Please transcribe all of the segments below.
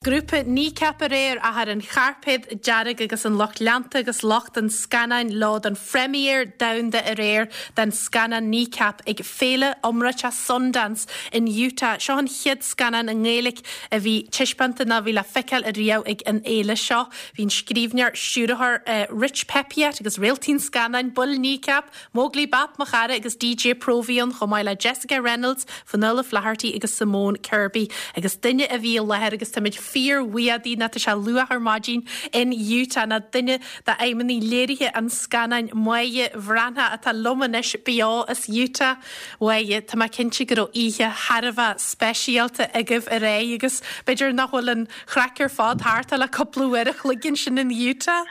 Grúpa Kneecap aréir ach ar an chairpéad dearg agus an lucht leanta agus lucht an scannáin leo don phrémière domhanda aréir den scannán Kneecap ag féile iomráiteach Sundance in Utah. Seo an chéad scannán i nGaeilge a bhí taispeánta nó a bhí le feiceáil ariamh ag an fhéile seo. Bhí an scríbhneoir, stiúrthóir Rich Peppiatt agus réaltaí an scannáin, baill Kneecap, Móglaí Bap, mo chara, agus DJ Próvaí ann, chomh maith le Jessica Reynolds, Fionnuala Flaherty agus Simone Kirby. Agus duine a bhí i láthair, agus táimid fíor-bhuíoch di, ná tá sé luath ar maidin in Utah, ná duine d'fheidhmeannaigh léirithe an scannáin, Máire Bhreathnach, atá liom anois beo as Utah. Mháire, tá mé cinnte go raibh oíche thar a bheith speisialta agaibh aréir agus b'fhéidir nach bhfuil an chraic ar fad thart ach le cúpla uair a chloig ansin in Utah.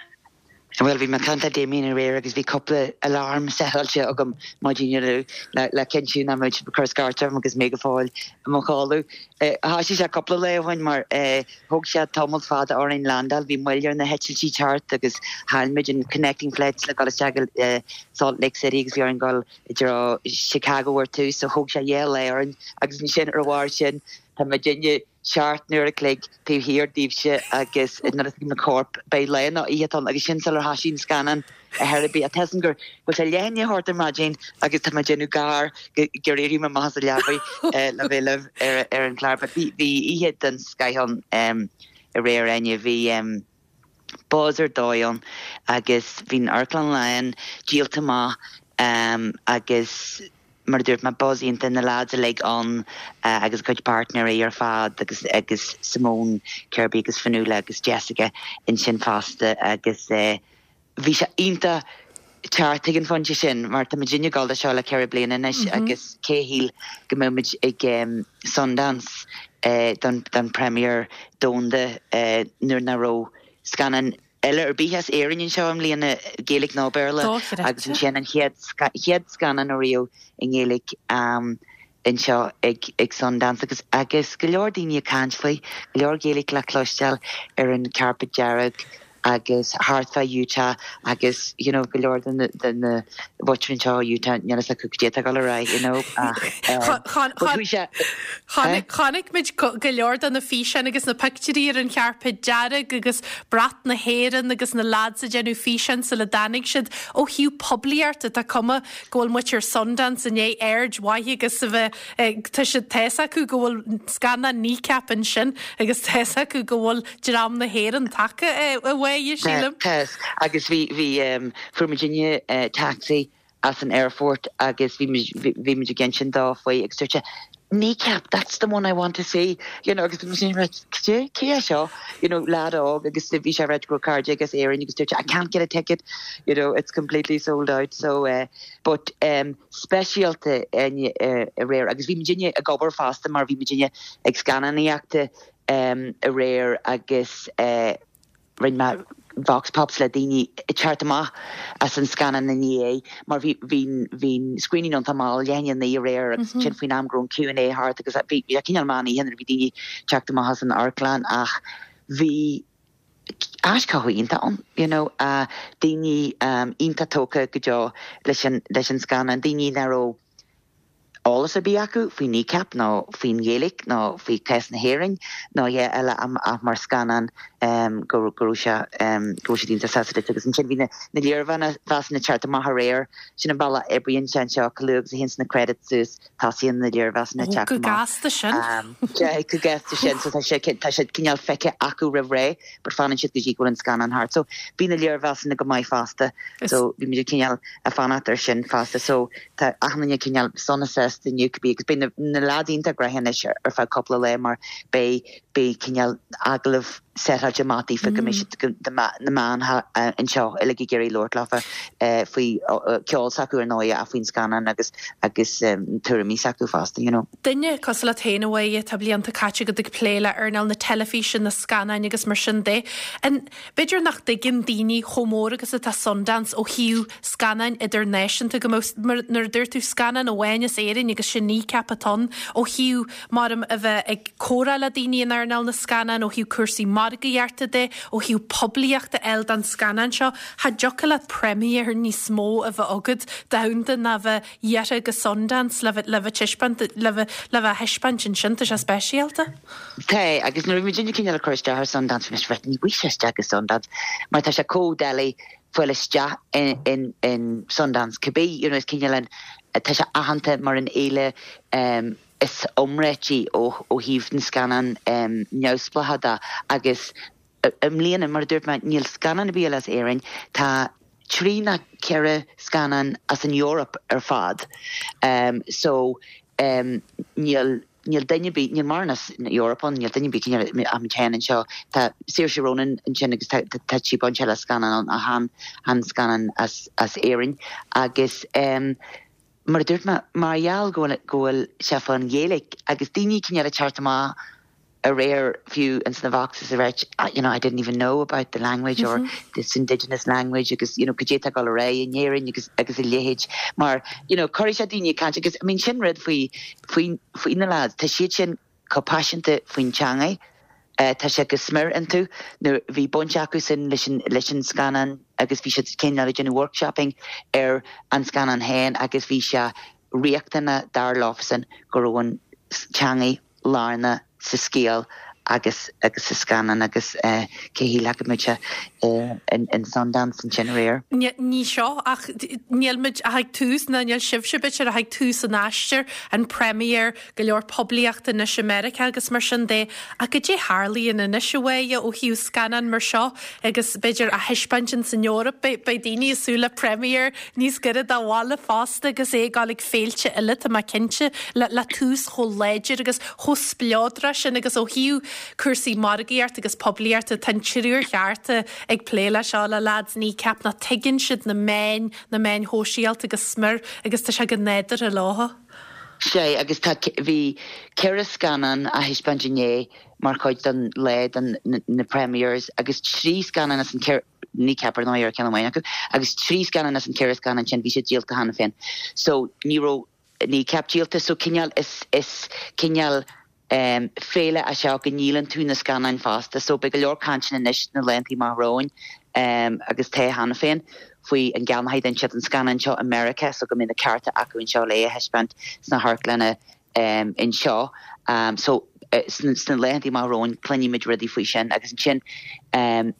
Bhuel, bhí mé ag caint le Damien aréir agus bhí cúpla alarm setáilte agam maidin inniu le cinntiú nach mbeadh siad ag cur scairt orm agus mé go fóill i mo chodladh. Thoisigh sé cúpla lá ó shin mar thóg sé tamall fada orainn landáil, bhí moill ar na heitiltí teacht agus chaill muid an connecting flights le dul isteach go Salt Lake City agus bhí orainn dul i dtreo Chicago ar tús so thóg sé dhá lá orainn agus ansin ar a bharr sin tá muidinne 7 n-uair a chloig taobh thiar daoibhse agus nuair a thuig na coirp beidh lá nó oíche ann agus sin sular thoisigh an scannán ar chor ar bith. Tá a fhios agam go bhfuil sé leath i ndiaidh a hocht ar maidin agus tá mé ag déanamh gar gur éirigh mé amach as an leabaidh le bheith libh ar an chlár. But bhí oíche den scoith ann aréir Áine. Bhí buzz ar dóigh ann agus bhí an amharclann lán, díolta amach agus mar a dúirt mé, buzz iontach, na lads uilig ann agus a gcuid páirtnéirí ar fad agus agus Simone Kirby agus Fionnuala agus Jessica ansin fosta agus bhí sé iontach teacht ag an phointe sin mar tá muidinne ag dul do seo le 4 bliana anois agus cé a shíl go mbeadh muid ag Sundance don don premiere domhanda nuair nach raibh scannán eile ar bith as Éirinn anseo i mbliana, Gaeilge nó Béarla, agus ansin an chéad chéad scannán ariamh i nGaeilge anseo ag ag Sundance agus agus go leor daoine ag caint faoi, go leor Gaeilge le cloisteáil ar an carpet dearg agus thart fá Utah agus you know go leor de na de na mhuintir anseo i Utah níl a fhios acu cad é atá ag dul ar aghaidh you know ach but chuaigh sé eh? Chonaic muid go leor de na físeáin agus na pictiúirí ar an charpet dearg agus brat na hÉireann agus na lads ag déanamh físeáin sula dtáinig siad. Ó thaobh poiblíochta tá cuma go bhfuil muintir Sundance i ndiaidh aird mhaith agus a bheith tá siad tá fhios acu go bhfuil scannán Kneecap ansin agus tá fhios acu go bhfuil dream na hÉireann tagtha a Mháire, sílim. Tá, agus bhí, bhí, fuair muidinne taxi as an aerfort agus bhí muid, bhí muid ag insint dó faoi agus dúirt sé, Kneecap, that's the one I want to see, you know, agus bhí muid right, cé, cé é seo, you know, lad óg agus bhí sé ag ráit go raibh cairde aige as Éirinn agus dúirt sé, I can't get a ticket, you know, it's completely sold out, so, eh, but, um, speisialta aréir agus bhí muidinne ag obair fosta mar bhí muidinne ag scannánaíochta aréir agus rinne mé vox pops le daoine ag teacht amach as an scannán i ndiaidh mar bhí bhí bhí screening iontach mall leath i ndiaidh a 9 aréir agus ansin faoin am go raibh an Q&A thart agus bhí bhí cineál meán oíche nuair a bhí daoine ag teacht amach as an amharclann ach bhí aischothú iontach ann you know daoine iontach tógtha go deo leis an leis an scannán daoine nach raibh eolas ar bith acu faoi Kneecap nó faoin Ghaeilge nó faoi chás na hÉireann nó a dhath eile ach mar scannán go raibh sé go raibh siad iontach sásta leis agus ansin bhí na léirmheasanna ag teacht amach aréir sin an bealach a oibríonn sé anseo chomh luath agus a théanns na credits suas tosaíonn na léirmheasanna ag teacht amach. Go gasta sin. Go gasta sin so tá sé tá siad cineál feicthe acu roimh ré but fanann siad go dtí go bhfuil an scannán thart so bhí na léirmheasanna go maith fosta so bhí muid cineál ag fanacht ar sin fosta so tá achan duine cineál sona sásta inniu cibé agus beidh na leaids iontach gnoitheach anois ar feadh cúpla lá mar beidh beidh cineál agallamh setáilte amach daofa go mbeidh siad na meáin anseo uilig ag iarraidh labhairt leofa faoi ceol s'acu ar ndóigh ach faoin scannán agus agus tuairimí s'acu fosta you know. Duine cosúil leat féin a Mháire, tá blianta caite agat ag plé le earnáil na teilifíse, na scannáin agus mar sin de. An B'fhéidir nach dtuigeann daoine chomh mór agus atá Sundance ó thaobh scannáin idirnáisiúnta, go mbeadh, mar nuair a dúirt tú, scannán amháin as Éirinn agus sin Kneecap atá ann, ó thaobh, maram, a bheith ag comhrá le daoine in earnáil na scannán, ó thaobh cúrsaí margaíochta. margaíochta de, ó thaobh poiblíochta a fháil don scannán seo, cha dtiocfadh leat premiere níos mó a bheith agat domhanda ná bheith iarrtha go Sundance le bheith le bheith taispeáint le bheith le bheith á thaispeáint ansin. Tá sé speisialta. Tá, agus nuair a bhí muidinne cineál ag cur isteach ar Sundance, bhí mise right, ní bhfuil sé isteach go Sundance mar tá sé chomh doiligh fáil isteach in in in Sundance cibé, you know, is cineál an tá sé aitheanta mar an fhéile um, is iomráití ó ó thaobh na scannán um, neamhspleácha de agus I mbliana, mar a dúirt mé, níl scannán ar bith eile as Éirinn. Tá trí nó ceithre scannán as an Eoraip ar fad. So, níl, níl duine ar bith, níl mórán as an Eoraip ann, níl duine ar bith cineál ach muid féin anseo. Tá Saoirse Ronan ansin agus tá, tá sí bainte le scannán ann ach chan, chan scannán as, as Éirinn. Agus mar a dúirt mé, mar gheall go bhfuil, go bhfuil sé fán Ghaeilge agus daoine cineál ag teacht amach aréir fiú ins na Voxes ag ráit you know I didn't even know about the language or this indigenous language agus you know cad é atá ag dul ar aghaidh in Éirinn agus agus a leithéid mar you know cuirfidh sé daoine ag caint agus I mean sin rud faoi faoi faoi na lads tá siad sin chomh paiseanta faoin teangaidh eh tá sé go smior iontu nuair bhí baint acu sin leis an leis an scannán agus bhí siad cineál ag déanamh workshopping ar an scannán féin agus bhí sé riachtanach dar leofasan go raibh an teangaidh lárnach sa scéal agus agus sa scannán agus cé a shílfeadh go mbeadh sé in Sundance ansin aréir. Ní seo ach níl muid ach ag tús, ná níl sibhse b'fhéidir ach ag tús an aistir, an premiere, go leor poiblíochta anois i Meiriceá agus mar sin de. Ach goidé tharlaíonn anois a Mháire ó thaobh scannán mar seo agus b'fhéidir á thaispeáint ins an Eoraip, beidh daoine ag súil le premiere níos gaire do bhaile fosta agus é ag dul ag féilte eile, tá mé cinnte, le tús chomh láidir agus chomh spleodrach sin agus ó thaobh cúrsaí margaíochta agus poiblíochta, tá an triúr cheart ag plé leis seo, le leaids Kneecap, nó tuigeann siad na meáin, na meáin shóisialta go smior agus tá sé go nádúrtha leo. Sea, agus tá, bhí ceithre scannán á thaispeáint inné mar chuid den lá den na premieres agus trí scannán as an ceithre, Kneecap ar ndóigh ar ceann amháin acu, agus trí scannán as an ceithre scannán sin bhí siad díolta cheana féin. So ní raibh Kneecap díolta so cineál is is cineál em féile é seo go ndíolann tú na scannáin fosta so beidh go leor cainteanna anois sna laethanta amach romhainn em agus tá cheana féin faoi an gceannóidh duine inteacht an scannán seo i Meiriceá so go mbeidh na cearta acu anseo le é a thaispeáint sna hamharclanna em anseo em so sna sna laethanta amach romhainn cluinfimid rudaí faoi sin agus ansin em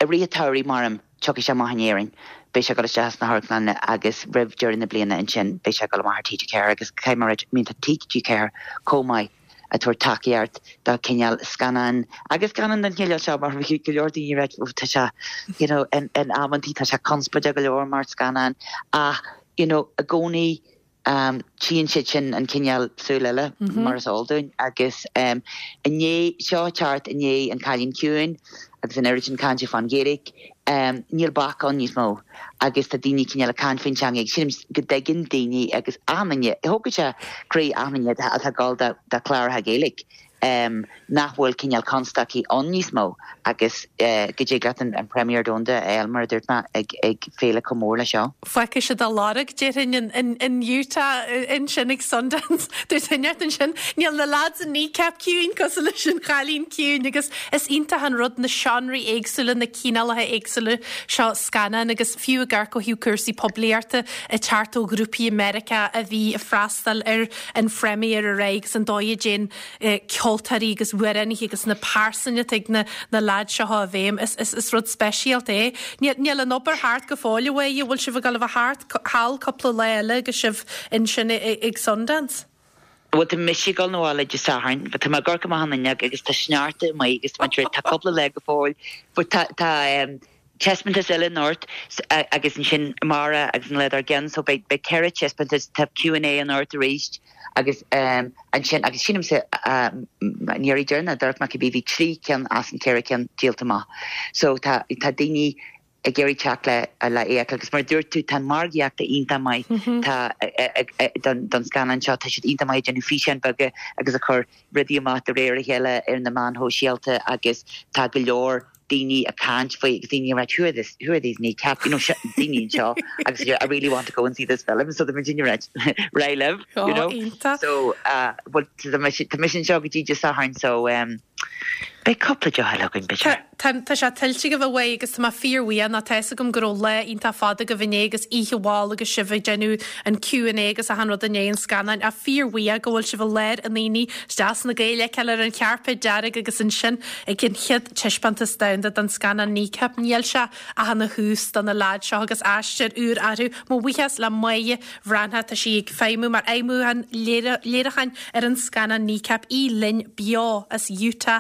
I rith an tsamhraidh, maram, tiocfaidh sé amach in Éirinn. Beidh sé ag dul isteach sna hamharclanna agus roimh deireadh na bliana ansin beidh sé ag dul amach ar TG4 agus caithfidh mé a ráit, I mean tá TG4 chomh maith ag tabhairt tacaíocht do cineál scannán agus scannán den chineál seo mar bhí go leor daoine ag ráit oh tá sé you know in in amantaí tá sé conspóideach go leor mar scannán ach you know i gcónaí Tchíonn siad sin an cineál súil eile, mar is eol dúinn, agus i ndiaidh seo teacht i ndiaidh An Cailín Ciúin agus an oiread sin cainte fán Ghaeilge, níl bac ann níos mó agus tá daoine cineál ag caint faoin teanga agus sílim go dtuigeann daoine agus achan duine, thógfadh sé croí achan duine atá ag dul do chláracha Gaeilge. nach bhfuil cineál constaicí ann níos mó agus go dtig leat an premiere domhanda a fháil, mar a dúirt mé, ag féile chomh mór leis seo. Fágfaidh siad a lorg, déarfainn, in Utah ansin ag Sundance. Dúirt duine inteacht ansin, níl na lads in Kneecap ciúin cosúil leis an Chailín Ciúin agus is iontach an rud na seánraí éagsúla, na cineálacha éagsúla seo scannán agus fiú ag amharc ó thaobh cúrsaí poiblíochta ag teacht ó ghrúpaí i Meiriceá a bhí ag freastal ar an phrémiére aréir agus an dóigh a dtéann ceoltóirí agus amhránaithe agus na pearsain atá ag na na leaids seo i bhfeidhm. Is is is rud speisialta é. Níl níl an obair thart go fóill a Mháire, bhfuil sibh ag dul a bheith thart thall cúpla lá eile agus sibh ansin ag Sundance? Bhuel tá mise ag dul 'na bhaile Dé Sathairn, but tá mé ag amharc amach an fhuinneog agus tá sneachta amuigh agus tá mé tá cúpla lá go fóill but tá tá taispeántas eile anocht agus ansin amárach agus an lá dár gcionn so beidh beidh 4 taispeántas, tá Q and A anocht arís agus ansin agus sílimse an iarraidh deireanach a d'amharc mé cibé bhí 3 ceann as an 4 ceann díolta amach so tá tá daoine ag iarraidh teacht le le é a fheiceáil agus mar a dúirt tú tá an margaíocht iontach maith tá don don scannán seo tá siad iontach maith ag déanamh físeáin beaga agus ag cur rudaí amach de réir a chéile ar na meáin shóisialta agus tá go leor daoine ag caint faoi agus daoine ag ráit who are this who are these kneecap you know daoine anseo agus I really want to go and see this film so tá muid ag ráit right libh you know so uh, well tá mise anseo go dtí Dé Sathairn so um, Beidh cúpla deoch eile againn, b'fhéidir. Tá, tá sé tuillte agaibh a Mháire agus tá mé fíorbhuíoch nó tá fhios agam go raibh lá iontach fada agaibh inné agus oíche mhall agus sibh ag déanamh an Q and A agus achan rud i ndiaidh an scannáin ach fíorbhuíoch go bhfuil sibh i lár an aonaigh is deas na Gaeil a fheiceáil ar an chairpéad dearg agus ansin ag an chéad taispeántas domhanda den scannán Kneecap. Níl sé ach ina thús do na leaids seo agus aistear úr orthu. Mo bhuíochas le Máire Bhreathnach, tá sí ag feidhmiú mar fheidhmiúchán léiriúcháin ar an scannán Kneecap, í linn beo as Utah.